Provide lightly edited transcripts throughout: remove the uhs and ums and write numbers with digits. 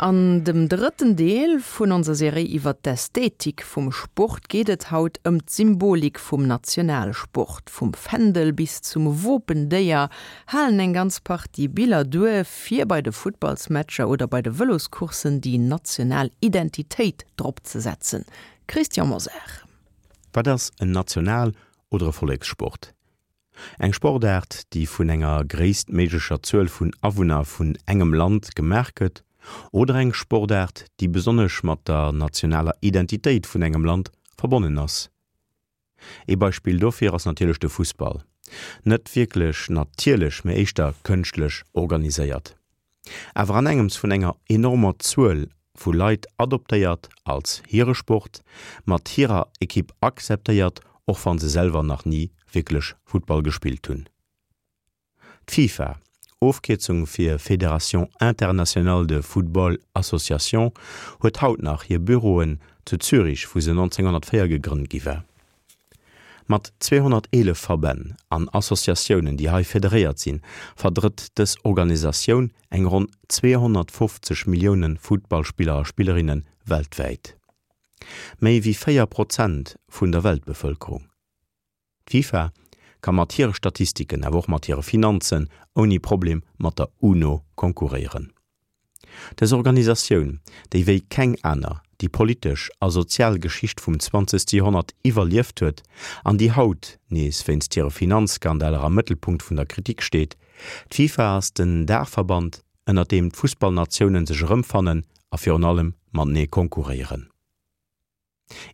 An dem drëtten Deel vun onser Serie iwwer d'Ästhetik vum Sport geet et haut ëm d'Symbolik vum Nationalsport. Vum Fändel bis zum Wopendéier halen eng ganz Partie Biller duer, fir bei de Futtballsmatcher oder bei de Vëloscourssen déi national Identitéit drop ze setzen. Christian Mosar. Wat ass en National oder e Vollekssport? Eng Sportaart, déi vun enger gréisstméiglecher Zuel vun Awunner vun engem Land gemaach gëtt, oder eng Sportaart, déi besonnesch mat der nationaler Identitéit vun engem Land verbonnen ass. Ee Beispill dofir ass natierlech de Fussball, net wierklech natierlech, mee éischter kënschtlech organiséiert. Awer an engems vun enger enormer Zuel vu Leit adoptéiert als hire Sport, mat hirer Ekipp akzeptéiert, och wann se selwer nach ni wierklech Futtball gespillt hunn. D'FIFA, Ofkierzung fir Fédération Internationale de Football Association, huet haut nach hir Büroen zu Zürich, wou se 1904 gegrënnt gi war. Mat 211 Verbänn an Associatiounen, déi hei federéiert sinn, verdrëtt dës Organisatioun eng ronn 250 Millioune Futtballspiller a Spillerinne weltwäit. Méi wéi 4 Prozent vun der Weltbevëlkerung. D'FIFA ka mat hire Statistiken, awer och mat hire Finanzen ouni Problem mat der UNO konkurréieren. Dës Organisatioun, déi wéi keng aner déi politesch a sozial Geschicht vum zwanzegste Joerhonnert iwwerlieft huet an déi haut nees wéinst hire Finanzskandaler am Mëttelpunkt vun der Kritik steet, d'FIFA ass den Daachverband, ënner deem d'Fussballnatiounen sech erëmfannen a virun allem matenee konkurréieren.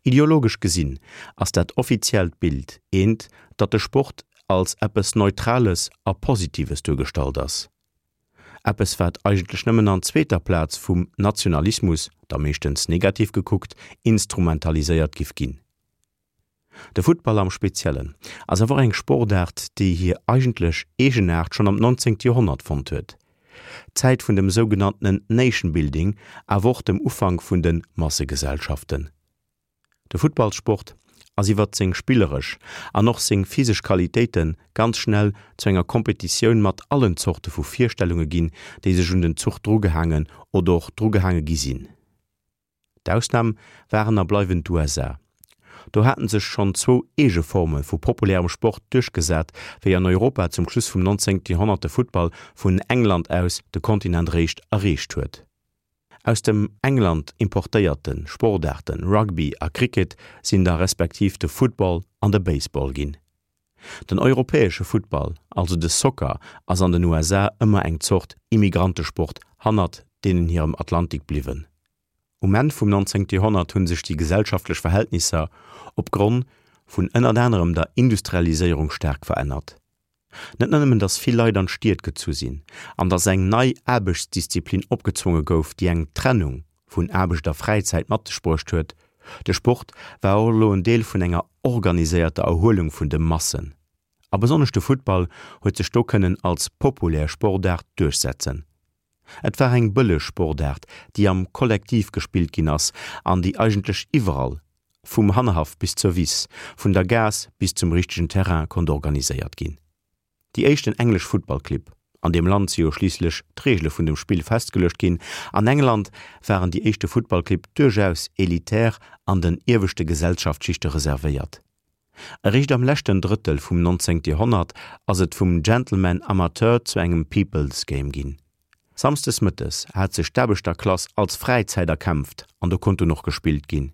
Ideologesch gesinn ass dat offiziellt Bild eent, datt de Sport als eppes Neutrales a Positives duergestallt ass. Eppes wat eigentlech nëmmen an zweeter Plaz vum Nationalismus, da meeschtens negativ gekuckt, instrumentaliséiert giff ginn. De Futtball am Speziellen ass awer och eng Sportaart, déi hir eigentlech Eegenaart schonn am 19. Joerhonnert fonnt huet. D'Zäit vun dem sougenanntenen Nation Building, awer och dem Ufank vun de Massegesellschaften. De Futtballssport ass iwwert seng spilleresch an och seng physesch Qualitéite ganz schnell zu enger Kompetitioun mat allen Zorte vu Virstellunge ginn, déi sech un den Zuch drugehaangen oder och drugehaange gi sinn. D'Ausnam waren a bleiwen d'USA. Do haten sech schonn zwou eege Forme vu populärem Sport duerchgesat, wéi an Europa zum Schluss vum 19. Joerhonnert de Futtball vun England aus de Kontinent réischt erreecht huet. Aus dem England importéierte Sportaarte Rugby a Cricket sinn da respektiv de Football an de Baseball ginn. Den europäesche Futtball, also de Soccer, ass an den USA ëmmer eng Zort Immigrantesport hannert deenen hirem Atlantik bliwwen. Um Enn vum 19. Joerhonnert hu sech déi gesellschaftlech Verhältnisser op Gronn vun ënnert anerem der Industrialiséierung staark verännert. Net nëmmen datt vill Leit an d'Stied gezu sinn an datt eng nei Aarbechtsdisziplin opgezwonge gouf, déi eng Trennung vun Aarbecht a Fräizäit mat sech bruecht huet, de Sport war och elo en Deel vun enger organiséierter Erhuelung vun de Massen. A besonnesch de Futtball huet sech do kënnen als populär Sportaart duerchsetzen. Et war eng bëlleg Sportaart, déi am Kollektiv gespillt ginn ass an déi eigentlech iwwerall, vum Hannerhaff bis zur Wiss, vun der Gaass bis zum richtegen Terrain konnt organiséiert ginn. Déi éischten englesch Futtballclibb, an deem Land si jo schliisslech d'Reegele vun dem Spill festgeluecht ginn, an England waren déi éischte Futtballclibb duerchaus elitär an den ieweschte Gesellschaftsschichte reservéiert. Eréischt am leschten Drëttel vum 19. Joerhonnert ass et vum Gentleman Amateur zu engem People's Game ginn. Samsdes mëttes hat sech d'Aarbechterklass als Fräizäit erkämpft an do konnt dunn och gespillt ginn.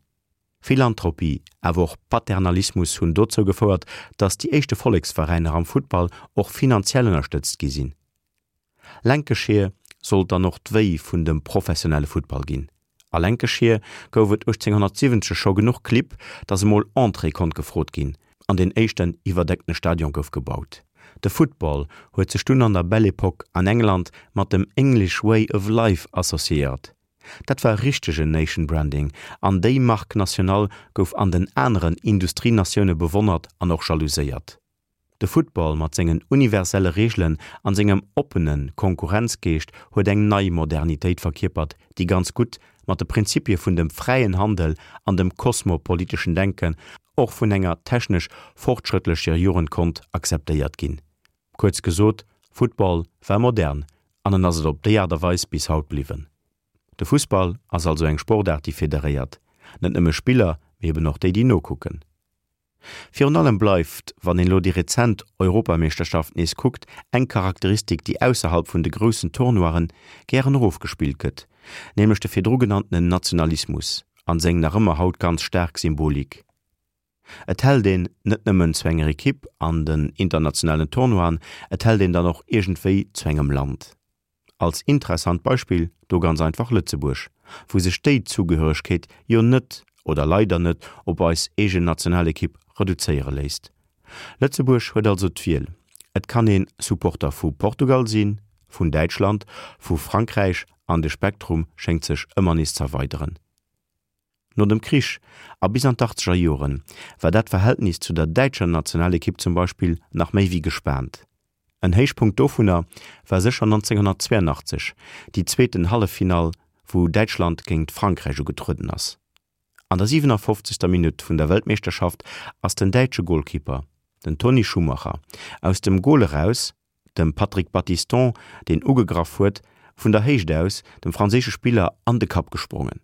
Philanthropie, awer och Paternalismus hunn dozou gefouert, datt déi éischte Volleksveräiner am Futtball och finanziell ënnerstëtzt gi sinn. Lancashire sollt dann och d'Wéi vun dem professionelle Futtball ginn. A Lancashire gouf et 1870 scho genuch Clibb, datt emol Entrée konnt gefrot ginn an deen éischten iwwerdeckte Stadion gouf gebaut. De Football huet sech dunn an der Belle Epoque an England mat dem English Way of Life associéiert. Dat war richtegen Nation Branding an déi Marque nationale gouf an den aneren Industrienatioune bewonnert an och jalouséiert. De Football mat sengen universelle Reegelen an sengem oppene Konkurrenzgeescht huet eng nei Modernitéit verkierpert, déi ganz gutt mat de Prinzipie vun dem fräien Handel an dem kosmopoliteschen Denken och vun enger technesch fortschrëttlecher Jugend konnt akzeptéiert ginn. Kuerz gesot, Football war modern an en ass et op déi Aart a Weis bis haut bliwwen. De Fussball ass also eng Sportaart, déi federéiert, net nëmme Spiller, mee eben och déi, déi nokucken. Virun allem bleift, wann een elo déi rezent Europameeschterschaft nees kuckt, eng Charakteristik, déi ausserhalb vun de groussen Tournoien gären erofgespillt gëtt, nämlech de virdru genanntenen Nationalismus an seng nach ëmmer haut ganz staark Symbolik. Et hält een net nëmmen zu enger Ekipp an den internationalen Tournoien, et hält een dann och iergendwéi zu engem Land. Als interessant Beispill do ganz einfach Lëtzebuerg, wou sech déi Zugehöregkeet jo net, oder leider net, op eis eegen Nationalekipp reduzéiere léisst. Lëtzebuerg huet also d'Wiel, et kann ee Supporter vu Portugal sinn, vun Däitschland, vu Frankräich an de Spektrum schéngt sech ëmmer nees z'erweideren. No dem Krich a bis an d'Achtzeger Joren war dat Verhältnis zu der däitscher Nationalekipp zum Beispill nach méi wéi gespaant. En Héichpunkt dovunner war sécher 1982, déi zweeten Halleffinall, wou Däitschland géingt Frankräich ugetrueden ass. An der 57. Minutt vun der Weltmeeschterschaft ass den däitsche Golkipper, den Toni Schumacher, aus dem Gol eraus, dem Patrick Battiston, deen ugegraff huet, vun der Héicht aus dem franséische Spiller an de Kapp gesprongen.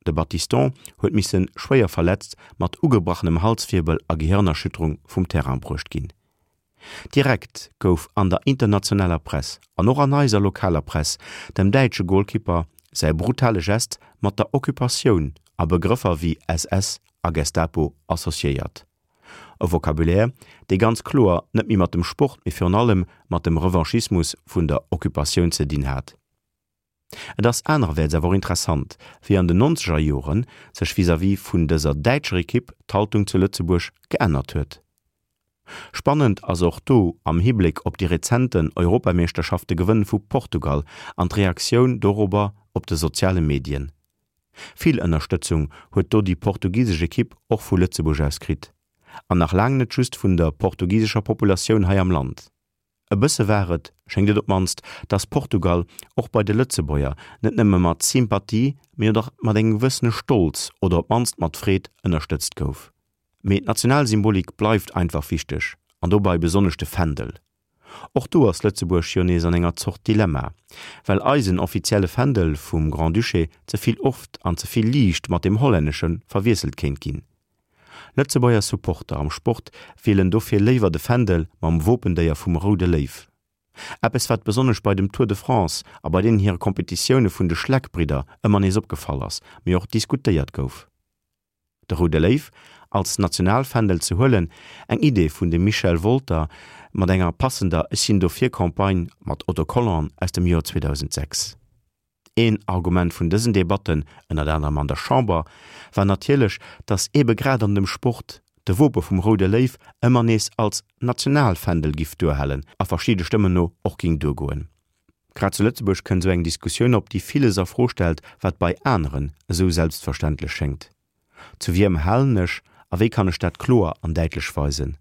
De Battiston huet misse schwéier verletzt mat ugebrachenem Halswierbel a Gehirnerschütterung vum Terrain bruecht ginn. Direkt gouf an der internationaler Press an och an eiser lokaler Press dem däitsche Golkipper säi brutale Gest mat der Occupatioun a Begrëffer wéi SS a Gestapo associéiert. E Vocabulaire, dee ganz kloer net méi mat dem Sport, mee virun allem mat dem Revanchismus vun der Occupatioun ze dinn hat. Et ass anererwäerts awer och interessant, wéi an den nonzeger Jore sech vis-à-vis vun dëser däitscher Ekipp d'Haltung zu Lëtzebuerg geännert huet. Spannend ass och do am Hibléck op déi rezenten Europameeschterschafte-Gewënn vu Portugal an d'Reaktioun dorobber op de soziale Medien. Vill Ënnerstëtzung huet do déi portugisesch Ekipp och vu Lëtzebuerg aus kritt, an nach laang net just vun der portugisescher Populatioun hei am Land. E bësse war et, schéngt et op d'mannst, datt Portugal och bei de Lëtzebuerger net nëmme mat Sympathie, mee och mat engem gewëssene Stolz oder op d'mannst mat Freed ënnerstëtzt gouf. Mee d'Nationalsymbolik bleift einfach wichteg, an dobei besonnesch de Fändel. Och do ass Lëtzebuerg jo nees an enger Zort Dilemma, well eisen offizielle Fändel vum Grand-Duché ze vill oft an ze vill liicht mat deem hollännesche verwiesselt kéint ginn. Lëtzebuerger Supporter am Sport wielen dofir léiwer de Fändel mam Wopendéier vum Roude Léiw. Eppes wat besonnesch bei dem Tour de France a bei deenen hire Kompetitioune vun de Schleck-Bridder ëmmer nees opgefall ass, mee och diskutéiert gouf. De Roude Léiw als Nationalfändel ze huelen, eng Idee vun dem Michel Wolter mat enger passender Ech sinn dofir-Campagne mat Autocollanten aus dem Joer 2006. Een Argument vun dësen Debatten, ënnert anerem an der Chamber, war natierlech, datt eebe grad an dem Sport de Wope vum Roude Léiw ëmmer nees als Nationalfändel giff duerhalen a verschidde Stëmmen no och ging duergoen. Grad zu Lëtzebuerg kënnt esou eng Diskussioun op, déi villes a Fro stellt, wat bei aneren esou selbstverständlech schéngt. Zu wiem halen ech a wéi kann ech dat kloer an däitlech weisen?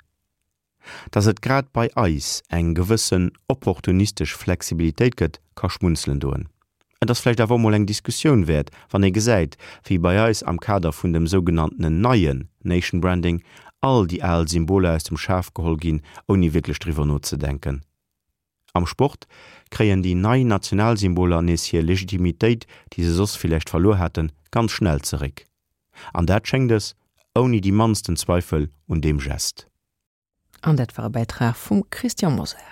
Dass et grad bei eis eng gewëssen opportunistesch Flexibilitéit gëtt, ka schmunzelen doen. Et ass vläicht awer och mol eng Diskussioun wäert, wann ee gesäit, wéi bei eis am Kader vun dem sougenanntenen neien Nation Branding all déi al Symboler aus dem Schaf geholl ginn, ouni wierklech driwwer nozedenken. Am Sport kréien déi nei Nationalsymboler nees hir Legitimitéit, déi se soss villäicht verluer haten, ganz schnell zeréck. An dat schéngt es, ouni déi mannsten Zweifel un deem Gest. An dat war e Bäitrag vum Christian Mosar.